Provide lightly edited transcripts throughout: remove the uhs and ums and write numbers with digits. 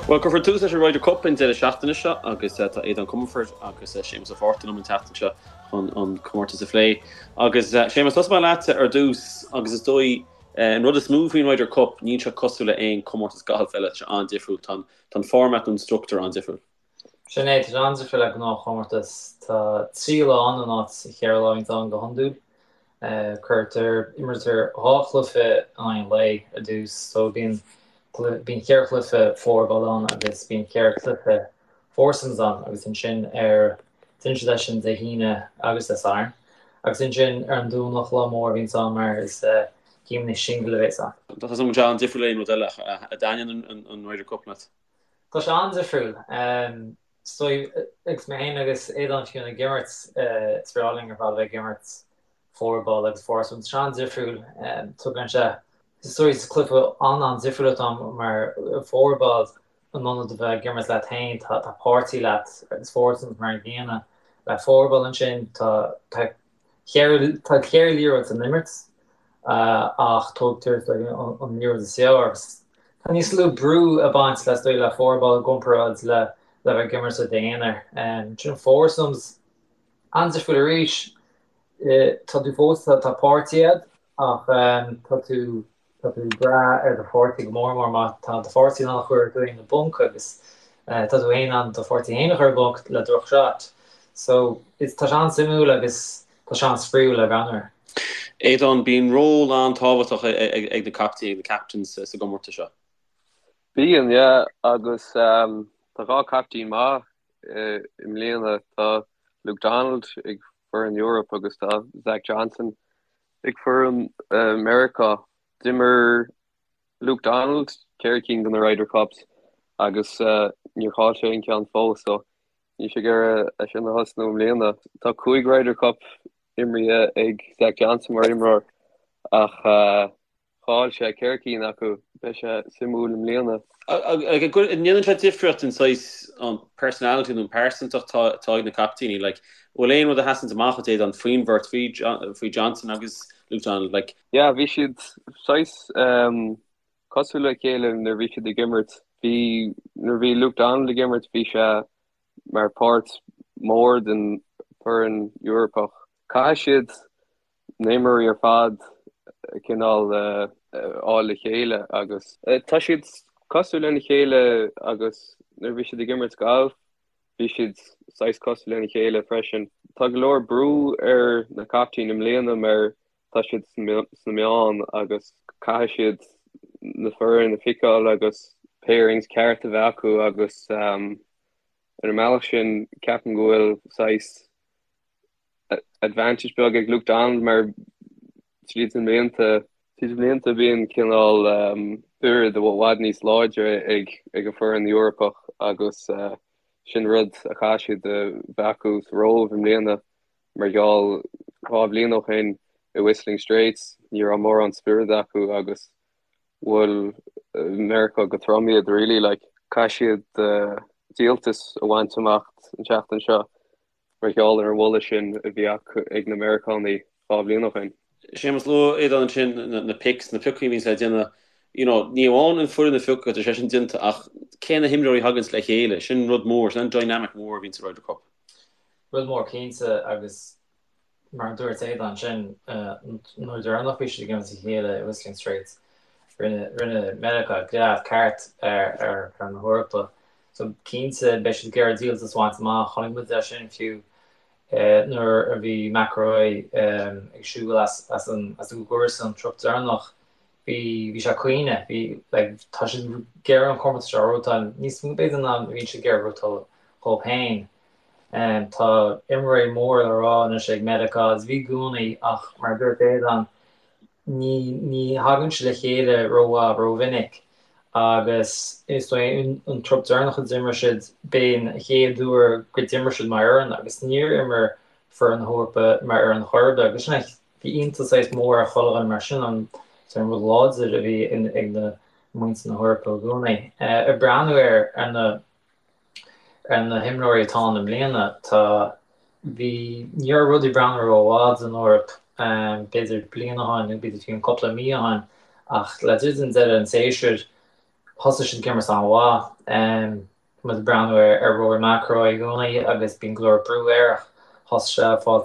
Bhuel, cuirfear tús leis an Ryder Cup an deireadh seachtaine seo agus tá Aodán Comerford agus Séamus Ó Fátharta liom an tseachtain seo chun an comórtas a phlé. Agus Séamus, tosóidh mé leatsa ar dtús agus is dóigh an rud is mó faoin Ryder Cup, níl sé cosúil le aon comórtas gailf eile, tá sé an-difriúil, tá an format nó an struchtúr an-difriúil. Sin é, tá sé an-difriúil le gnáthchomórtas. Tá 3 lá ann in áit 4 lá a bhíonns ann go hiondúil. Cuirtear, imrítear 2 chluiche in aghaidh an lae ar dtús, so bíonn, bíonn 4 chluiche fourball ann agus bíonn 4 chluiche foursomes ann agus ansin ar, déanann siad é sin Dé hAoine agus Dé Sathairn agus ansin ar an Domhnach, lá mór a bhíonns ann mar is céimeanna singil a bhéas ann. Tá sé an-difriúil le aon rud eile ach an dtaitníonn an Ryder Cup leat? Tá sé an-difriúil. Is dóigh, agus mé féin agus Aodán fiú ag imirt, is breá linn ar fad a bheith ag imirt fourball agus foursome. Tá sé an-difriúil. Tugann sé, is dóigh, is cluiche an-an-difriúil atá ann mar fourball in ionad a bheith ag imirt leat féin, tá páirtí leat agus foursomes mar an gcéanna. Le fourball ansin, tá Tá 4 liathróid san imirt ach tógtar an liathróid is fearr agus tá níos lú brú ag baint le is dóigh le fourball i gcomparáid le le bheith ag imirt i d'aonar. Sin foursomes an-difriúil arís. Tá tú fós tá páirtí agat ach tá tú Tá tú ag brath ar do pháirtí go mór mór má tá do pháirtí in ann a chur tú féin i bponc agus tá tú féin in ann do pháirtí féin a chur i bponc le droch shot. So is tá sé an-suimiúil agus tá sé an-spraíúil le breathnú air. Aodán, bíonn ról an-tábhachtach ag na caiptíní, ag na captains sa gcomórtas seo. Bíonn, yeah, agus tá 2 caiptín maith i mbliana. Tá Luke Donald ag foireann Eoraip agus tá Zach Johnson Ag foireann Meiriceá, d'imir Luke Donald 4 cinn de na Ryder Cups agus níor chaill sé aon cheann fós, so níl sé ag iarraidh é sin a thosnú i mbliana. Tá 5 Ryder Cup imrithe ag Zach Johnson mar imreoir ach chaill sé 4 cinn acu. Beidh sé suimiúil i mbliana. An ndéanann sé difríocht an saghas an personality nó an pearsantacht atá ag na caiptíní? Like, bhfuil aon rud a sheasanns amach duit Aodán faoin bheirt, faoi Johnson agus Luke Donald? Like. Yeah, bhí siad saghas cosúil le chéile nuair a bhí siad ag imirt. Bhí, nuair a bhí Luke Donald ag imirt bhí sé mar páirt mór den foireann Eorpach. Caithfidh siad na himreoirí ar fad cineál a fháil le chéile agus. Tá siad cosúil lena chéile agus nuair a bhí siad ag imirt galf bhí siad saghas cosúil lena chéile freisin. Tá go leor brú ar na caiptín i mbliana mar tá siad sna meáin agus caithfidh siad na foireann a phiceáil agus pairings ceart a bheith acu agus ar an mbealach sin ceapaim go bhfuil saghas advantage beag ag Luke Donald mar tríd na mblianta, tríd na blianta bíonn cineál spiorad i bhfad níos láidre ag ag an foireann Eorpach agus sin rud a chaithfidh siad a bheith acu sa Róimh i mbliana mar gheall 2 bhliain ó shin i Whistling Straits ní raibh mórán spiorad acu agus bhuail Meiriceá go trom iad really like caithfidh siad díoltas a bhaint amach an tseachtain seo. mar gheall ar an bhualadh sin a bhí acu ag na Meiriceánaigh 2 bhliain ó shin. Séamus, luaigh Aodán ansin na picks, na piocaí a bhíonns le déanamh, you know, ní amháin an foireann a phiocadh, tá sé sin déanta, ach cé na himreoirí a thaganns le chéile, sin rud mór, sin an dynamic mór a bhíonn sa Ryder Cup. Rud mór cinnte agus Mar a dúirt Aodán ansin, an uair deireanach bhí siad ag imirt a chéile i Whistling Straits, rinne rinne Meiriceá gread ceart ar ar ar na hEorpa. So cinnte beidh siad ag iarraidh díoltas a bhaint amach. Chonaic muid é sin fiú nuair a bhí McIlroy ag siúl as as an as an gcúrsa an trup deireanach. Bhí bhí sé ag caoineadh. Bhí like tá siad ag iarraidh an comórtas seo a ghnóthachtáil níos mó b'fhéidir ná a bhíonn siad ag iarraidh a ghnóthachtáil dhóibh féin. Tá imreoirí mór le rá anois ag Meiriceá agus bhí i gcónaí ach mar a dúirt Aodán ní ní thagann siad le chéile rómhaith rómhinic agus is dóigh an trup deireanach a d'imir siad b'é an chéad uair go d'imir siad mar fhoireann agus níor imir foireann na hEorpa mar fhoireann chor ar bith agus sin é bhí iontas saghas mór ar chuile dhuine mar sin an an rud láidir a bhí ag na muintir na hEorpa i gcónaí. Ag breathnú ar ar na Ar na himreoirí atá ann i mbliana, tá, bhí, ní raibh rudaí ag breathnú rómhaith don Eoraip, b'fhéidir bliain ó shin nó b'fhéidir fiú cúpla mí ó shin, ach le druidim deireadh an tséasúir. Thosaigh siad ag imirt an-mhaith. Tá muid ag breathnú ar Rory McIlroy i gcónaí agus bíonn go leor brú air ach thosaigh sé ag fáil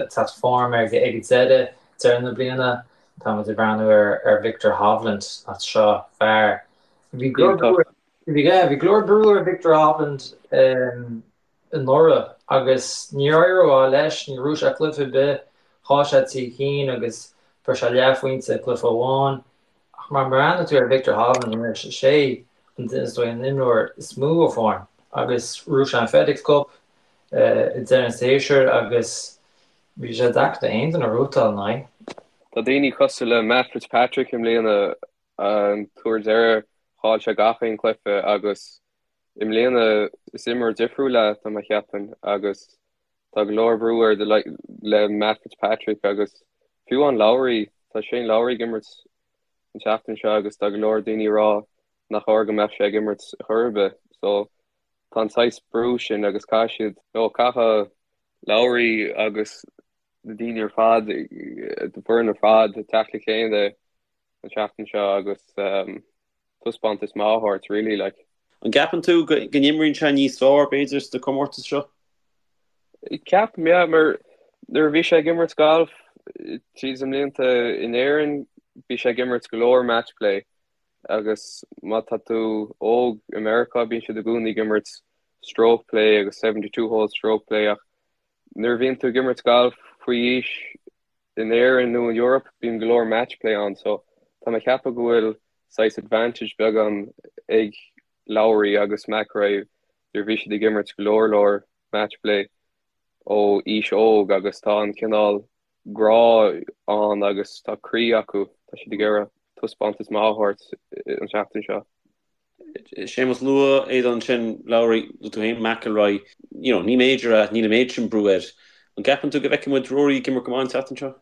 teacht form ag an deireadh, deireadh na bliana. Tá muid ag breathnú ar Viktor Hovland, seo fear. Bhí go leor bhí go leor brú ar Viktor Hovland anuraidh agus níor éirigh rómhaith leis, níor bhuaigh sé cluiche ar bith, chaill sé 3 cinn agus fuair sé leathphointe i gcluiche amháin. Ach má bhreathnaíonn tú ar Viktor Hovland anois, is é an is dóigh an imreoir is mó i bhform agus bhuaigh sé an FedEx Cup i deireadh an tséasúir agus bhí sé deacair d'aon duine rootáil ina aghaidh. Tá daoine cosúil le Matt Fitzpatrick i mbliana, an t-uair deireadh chaill sé gach aon chluiche agus i mbliana is imreoir difriúil é tá mé a cheapann agus tá go leor brú air le Matt Fitzpatrick agus fiú amháin Lowry, tá Shane Lowry ag imirt an tseachtain seo agus tá go leor daoine ag rá nach chóir go mbeadh sé ag imirt chor ar bith. So tá an saghas brú sin agus caithfidh siad, nó caithfidh Lowry agus na daoine ar fad, an foireann ar fad teacht le chéile an tseachtain seo agus taispeántas maith a thabhairt really like. An gceapann tú go n-imríonn sé níos fearr b'fhéidir sna comórtais seo? Ceapaim, yeah, mar nuair a bhí sé ag imirt galf tríd na mblianta in Éirinn bhí sé ag imirt go leor match play agus má tá tú óg i Meiriceá bíonn siad i gcónaí ag imirt stroke play agus 72 hole stroke play ach nuair a bhíonn tú ag imirt galf faoi aois in Éirinn nó in Europe bíonn go leor match play ann so tá mé ag ceapadh go bhfuil saghas advantage beagán ag Lowry agus McIlroy nuair a bhí siad ag imirt go leor leor match play ó aois óg agus tá an cineál grá ann agus tá croí acu, tá siad ag iarraidh taispeántas maith a thabhairt an tseachtain seo. Séamus, luaigh Aodán ansin, Lowry, luaigh tú féin McIlroy, you know, ní major é, níl an méid sin brú air. An gceapann tú go bhfeicfidh muid Rory ag imirt go maith an tseachtain seo?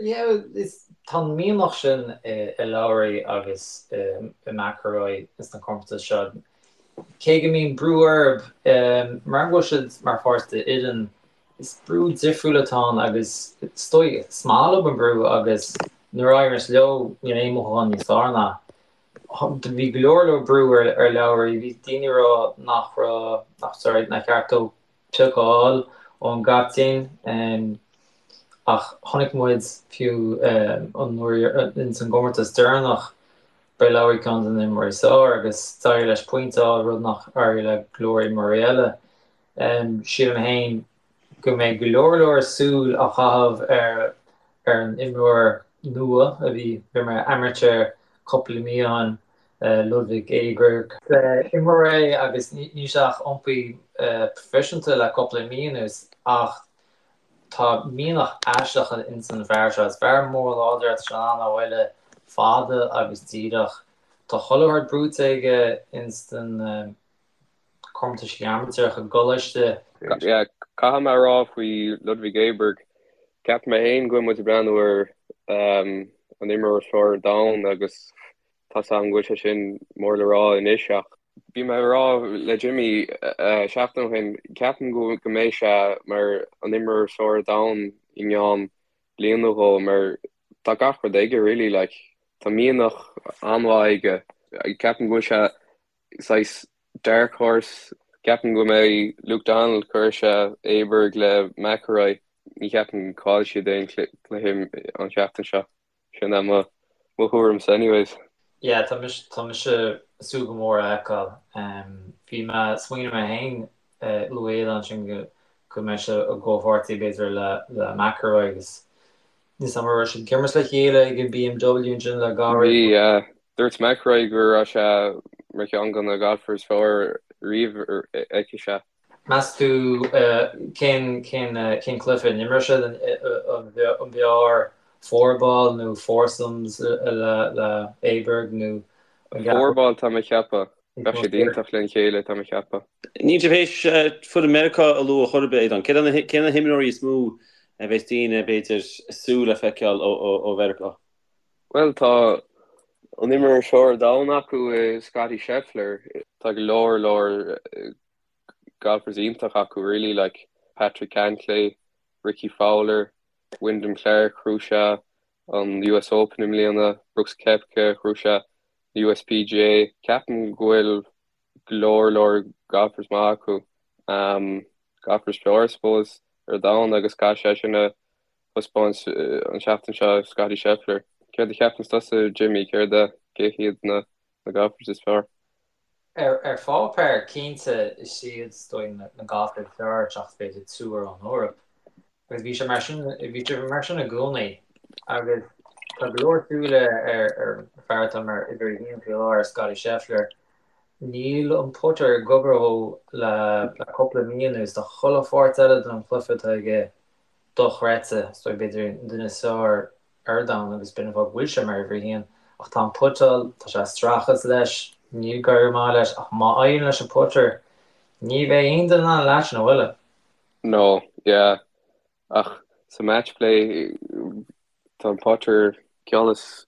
Yeah, is, tá an mianach sin i Lowry agus i McIlroy sna comórtais seo. Cé go mbíonn brú orthu, mar go bhfuil siad mar pháirt d'fhoireann, is brú difriúil atá ann agus is dóigh, is maith leo an brú agus nuair a éiríonn leo níl aon mhothúchán níos fearr ná. Bhí go leor leor brú ar Lowry, bhí daoine ag rá nach raibh, nach, sorry, nár cheart dó pioc a fháil ón gcaptaen ach chonaic muid fiú an uair ins an gcomórtas deireanach b'é Lowry ceann de na himreoirí is fearr agus d'éirigh leis pointe a fháil, rud nach éirigh le go leor imreoirí eile. Sílim féin go mbeidh go leor leor súil á chaitheamh ar ar an imreoir nua a bhí mar amateur cúpla mí ó shin, Ludvig Åberg. Imreoir é agus níl sé ach iompaithe proifisiúnta le cúpla mí anuas ach tá mianach aisteach ins an bhfear seo. Is fear mór láidir é, tá sé in ann a bhuille fada agus díreach. Tá chuile shórt buaite aige ins an comórtaisí amaitéaracha i gcoláiste. Yeah, caithfidh mé a rá faoi Ludvig Åberg, ceapaim mé féin go bhfuil muid ag breathnú ar an imreoir is fearr ar domhan agus tá 's agam go bhfuil sé sin mór le rá anois ach bhí mé ag rá le Jimmy seachtain ó shin, ceapaim go go mbeidh sé mar an imreoir is fearr ar domhan i gceann bliain nó dhó mar tá gach rud aige really like tá mianach an-mhaith aige, ceapaim go bhfuil sé saghas dark horse. Ceapaim go mbeidh Luke Donald, cuirfidh sé Åberg le McIlroy. Ní cheapaim go gcaillfidh siad aon cluiche an tseachtain seo. Sin é mo thuairimse anyways. Yeah, tá mise tá mise ag súil go mór a fheiceáil. Bhí mé ag smaoineamh mé féin luaigh Aodán ansin go go mbeidh sé i gcomhpháirtí b'fhéidir le le McIlroy agus Níl 's agam an raibh siad ag imirt le chéile ag an BMW ansin le gairid. Bhí, yeah. Dúirt McIlroy go raibh sé mar cheann de na golfers is fearr riamh a fheic sé. Meas tú cén cén cén cluiche a n-imreoidh siad? An b'fhearr fourball nó foursomes le le Åberg nó an gceapann Fourball tá mé ag ceapadh. Bheadh siad iontach lena chéile, tá mé ag ceapadh. Níl sibh théis foireann Meiriceá a lua chor ar bith, Aodán. Cé na himreoirí is mó a bheas daoine, b'fhéidir, ag súil le feiceáil ó Mheiriceá? Bhuel, tá an imreoir is fearr ar domhan acu i Scottie Scheffler. Tá go leor leor golfers iontach acu really, like Patrick Cantlay, Rickie Fowler, Wyndham Clark, ghnóthaigh sé an US Open i mbliana, Brooks Koepka, ghnóthaigh sé. USPGA. Ceapaim go bhfuil go leor leor golfers maith acu. Golfers fearr, I suppose, ar domhan agus caithfidh sé sin a thaispeáint an seachtain seo, Scottie Scheffler. Céard a cheapann tusa, Jimmy, céard a, cé hiad na golfers is fearr? Ar pháipéar, cinnte, is iad is dóigh na golfers is fearr seachas b'fhéidir triúr ón Eoraip. Agus bhí sé mar sin, bhí sé mar sin i gcónaí. Agus tá go leor súile ar ar an fear atá mar uimhir a haon faoi láthair, Scottie Scheffler. Níl an putter ag obair dhó le le cúpla mí anuas. Tá chuile pháirt eile den chluiche atá aige dochreidte. Is dóigh b'fhéidir an duine is fearr ar domhan agus b'in an fáth go bhfuil sé mar uimhir a haon. Ach tá an putáil, tá sé ag streachailt leis, níl ag éirí maith leis ach má éiríonn leis an putter, ní bheidh aon duine in ann leis-sean a bhualadh. No, yeah. Ach sa match play tá an putter ceann is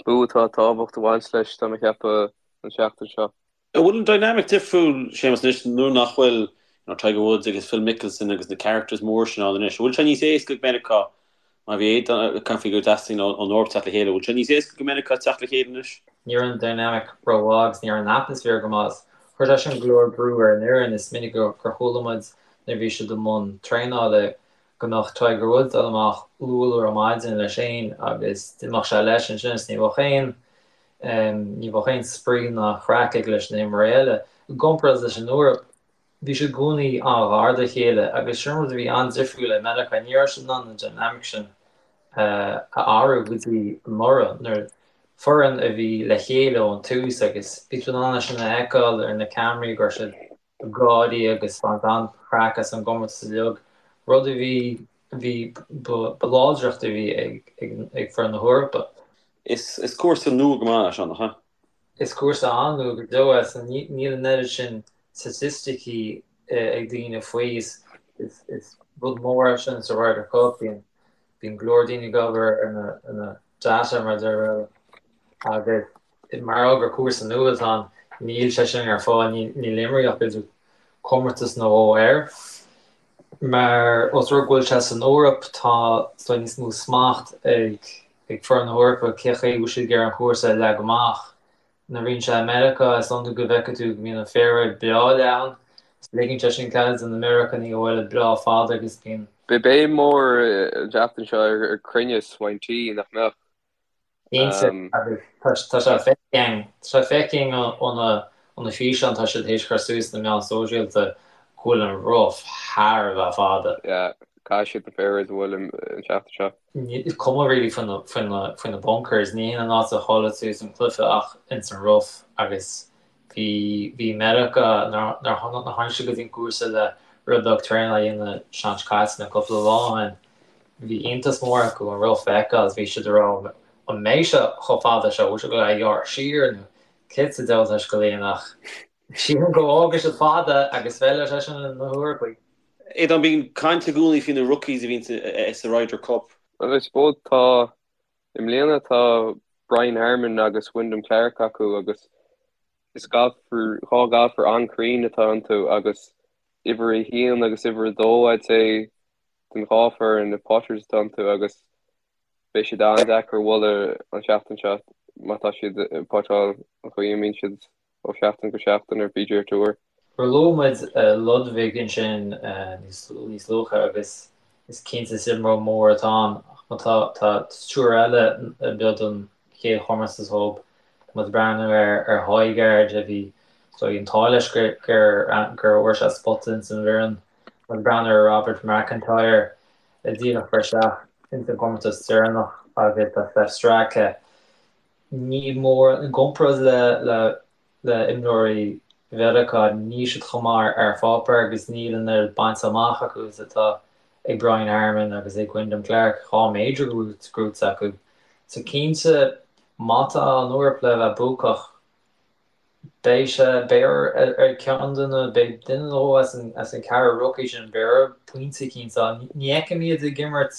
mó atá tábhacht a bhaint leis tá mé ag ceapadh an seachtain seo. An bhfuil an dynamic difriúil, Séamus, anois nuair nach bhfuil you know, Tiger Woods agus Phil Mickelson agus na characters mór sin ann anois? An bhfuil sé níos éasca ag Meiriceá Má bhí Aodán ag caint faoi gur dteastaíonn ón Eoraip teacht le chéile, an bhfuil sé níos éasca go Meiriceá teacht le chéile anois? Ní raibh an dynamic rómhaith agus ní raibh an atmaisféar go maith. Chuir sé sin go leor brú ar an fhoireann. Is minic gur chuala muid nuair a bhí siad i mbun traenála go mbeadh Tiger Woods dul amach luath luath ar maidin leis féin agus d'imeodh sé leis ansin is ní bheadh aon ní bheadh aon spraoi ná craic aige leis na himreoirí eile. I gcomparáid leis an Eoraip, Bhí siad i gcónaí an-ghar dá chéile agus sin rud a bhí an-difriúil le Meiriceá, ní raibh siad in ann an dynamic sin a athrú go dtí anuraidh nuair foireann a bhí le chéile ón tús agus bhí tú in ann é sin a fheiceáil ar na ceamaraí go raibh siad ag gáirí agus ag baint an-chraic as an gcomórtas uilig, rud a bhí bhí ba láidreacht a bhí ag ag foireann na hEorpa. Is cúrsa nua go maith é seo, nach ea? Is cúrsa an-nua go deo é so níl an oiread sin staitisticí ag daoine faoi. Is rud mór é sin sa Ryder Cup. Bíonn bíonn go leor daoine ag obair ar na ar na data mar a deir agus mar gheall gur cúrsa nua atá ann níl sé sin ar fáil, níl imríodh ach b'fhéidir comórtas nó dhó air. Mar os rud go bhfuil sé san Eoraip tá is dóigh níos mó smacht ag ag foireann na hEorpa cé chaoi a bhfuil siad ag iarraidh an cúrsa a leagadh amach. Nuair a bhíonn sé i Meiriceá, is iondúil go bhfeicfidh tú go mbíonn an fairway breá leathan, is ligeann sé sin cead do na Meiriceánaigh a bhualadh breá fada agus bíonn. Beidh béim mór an tseachtain seo ar cruinneas ón tee, nach mbeadh? Cinnte, agus tá sé feicthe againn, tá sé feicthe againn ó na físeáin atá siad théis cur suas sna meáin sóisialta go bhfuil an rough thar a bheith fada. Yeah, caithfidh siad na fairways a bhualadh an tseachtain seo. Is cuma really faoi na bunkers, ní hin an áit a chaillfidh tú an cluiche ach ins an rough agus bhí bhí Meiriceá nuair a tháinig siad go dtí an cúrsa le rud beag traenála a dhéanamh an tseachtain seo caite nó cúpla lá ó shin. Bhí iontas mór acu an rough a fheiceáil is bhí siad ag rá an mbeidh sé chomh fada seo, bhfuil sé ag dul a ghearradh siar nó céard sa diabhal atá sé ag dul a dhéanamh ach sílim go bhfágfaidh siad fada agus feilfidh sé sin na hEorpaigh. Aodán, bíonn caint i gcónaí faoi na rookies a bhíonn sa Ryder Cup. Well I suppose tá, i mbliana tá Brian Harman agus Wyndham Clark acu agus is golfer, dhá golfer an-cruinn atá iontu agus uimhir a haon agus uimhir a dó I'd say den dhá foireann na putters atá iontu agus beidh siad an-deacair a bhualadh an tseachtain seo má tá siad ag putáil an chaoi a mbíonn siad ó sheachtain go seachtain ar PGA Tour. Luaigh muid Ludvig ansin níos luaithe agus is cinnte is imreoir mór atá ann ach má tá tá triúr eile a b'eo don chéad chomórtas dhóibh. Tá muid ag breathnú ar ar Højgaard a bhí so an t-ádh leis gur gur gur fhuair sé spota ins an bhfoireann. Tá muid ag breathnú ar Robert MacIntyre a díreach fuair isteach ins an gcomórtas deireanach agus tá Sepp Straka. Ní mór, i gcomparáid le le le imreoirí Mheiriceá, níl siad chomh maith ar pháipéar agus níl an oiread bainte amach acu is atá ag Brian Harman agus ag Wyndham Clark, 2 major gnóite acu. So cinnte, má tá an Eoraip le bheith buacach, beidh sé, beidh ar ceann de na, beidh duine nó dhó as an, as an ceathrar rookie sin, beidh orthu pointe eicínt a fháil. Ní fheicim iad ag imirt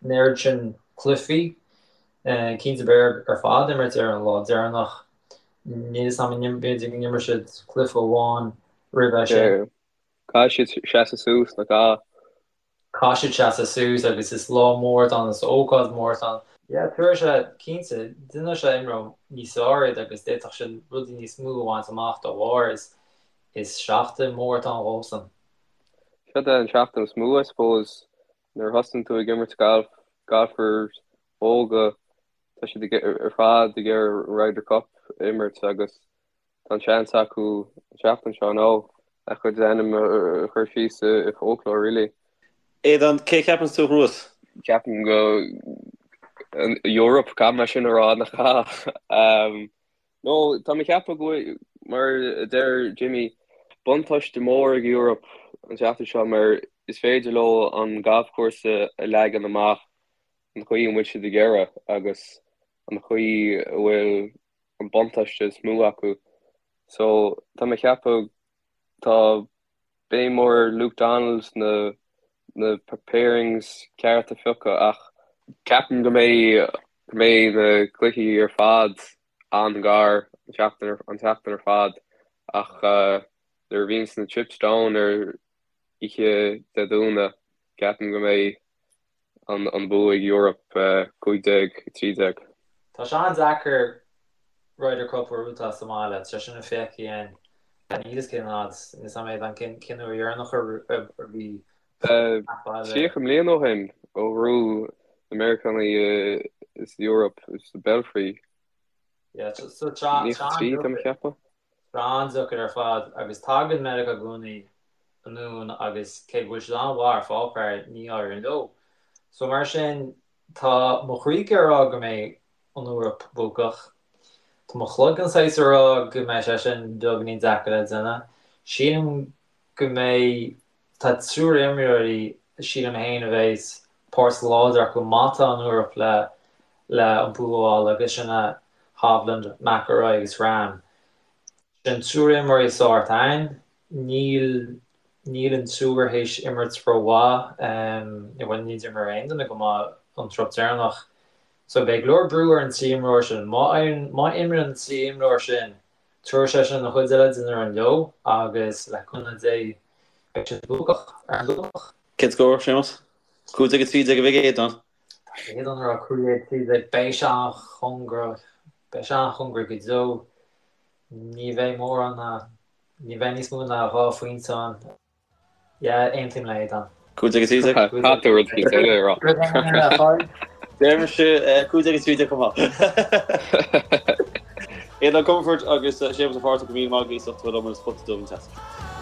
an oiread sin cluichí. Cinnte beidh orthu ar fad imirt ar an lá deireanach. Níl 'fhios a'm, b'fhéidir go n-imreoidh siad cluiche amháin roimhe sin. Caithfidh siad seasamh suas, nach ea? Caithfidh siad seasamh suas agus is lá mór atá ann, is ócáid mhór atá ann. Yeah, tabharfaidh sé, cinnte, déanfaidh sé imreoir níos fearr iad agus d'fhéadfadh siad rudaí níos mó a bhaint amach dá bharr. Is, is seachtain mhór atá ann dhósan. Seo é an seachtain is mó, I suppose, nuair a thosaíonn tú ag imirt galf, golfers óga, tá siad ar fad ag iarraidh Ryder Cup a imirt agus Tá an seans acu an tseachtain seo nó a chuid ainm a chur síos i folklore really. Aodán, cé a cheapanns tú a ghnóthós? Ceapaim go an Eoraip, caithfidh mé sin a rá nach ea? No, tá mé ag ceapadh go bhfuil, mar a deir Jimmy, buntáiste mór ag Europe an tseachtain seo mar is féidir leo an galfchúrsa a leagan amach an chaoi a bhfuil siad ag iarraidh agus an chaoi a bhfuil an buntáiste is mó acu. So tá mé ag ceapadh tá béim mór ar Luke Donald na na pairings ceart a phiocadh ach ceapaim go mbeidh go mbeidh na cluichí ar fad an-ghar an tseachtain an tseachtain ar fad ach nuair a bhíonns na chips down ar oíche Dé Domhnaigh ceapaim go mbeidh an bua ag Europe 15, 13. Tá sé an-deacair Ryder Cup a bhuachtáil sa mbaile, tá sé sin feicthe againn. Níl fhios cén fhad, níl fhios a'm cén uair dheireanach a bhí 30 mbliana ó shin ó bhuaigh na Meiriceánaigh is Europe sa Belfry. Yeah, so tá 93 tá mé ag ceapadh. Tá an-deacair ar fad agus tagann Meiriceá i gcónaí anonn agus cé go bhfuil siad an-mhaith ar pháipéar, ní éiríonn leo. So mar sin, tá mo chroí ag rá go mbeidh an Eoraip buacach. Tá mo chloigeann saghas ag rá go mbeidh sé sin beagáinín deacair le déanamh. Sílim go mbeidh, tá triúr imreoirí, sílim féin, a bheas páirt láidir acu má tá an Eoraip le le an bua a fháil agus sin é Hovland, McIlroy agus Rahm. Sin triúr imreoirí sórt ann. Níl níl an triúr théis imirt rómhaith, bhuel ní d'imir aon duine go maith an trup deireanach. So beidh go leor brú ar an trí imreoir sin. Má má imríonn an trí imreoir sin, tabharfaidh sé sin an chuid eile den fhoireann leo agus le cúnamh Dé beidh siad buacach ar an Domhnach. Cén scór, Séamus? 15 13 a bheidh ag Aodán. Tá Aodán ag rá 15 13. Beidh sé an-chóngarach, beidh sé an-chóngarach go deo. Ní bheidh mórán ná, ní bheidh níos mó ná 2 phointe ann. Yeah, aontaím le Aodán. 15 13. Caithfidh tú rud éicint eile a rá. Rud éigin eile a fháil. Deir mise 15 13 chomh maith. Aodán Comerford agus Séamus Ó Fátharta go míle maith agaibh as ucht a bheith liom ar an Spota Dubh an tseachtain seo.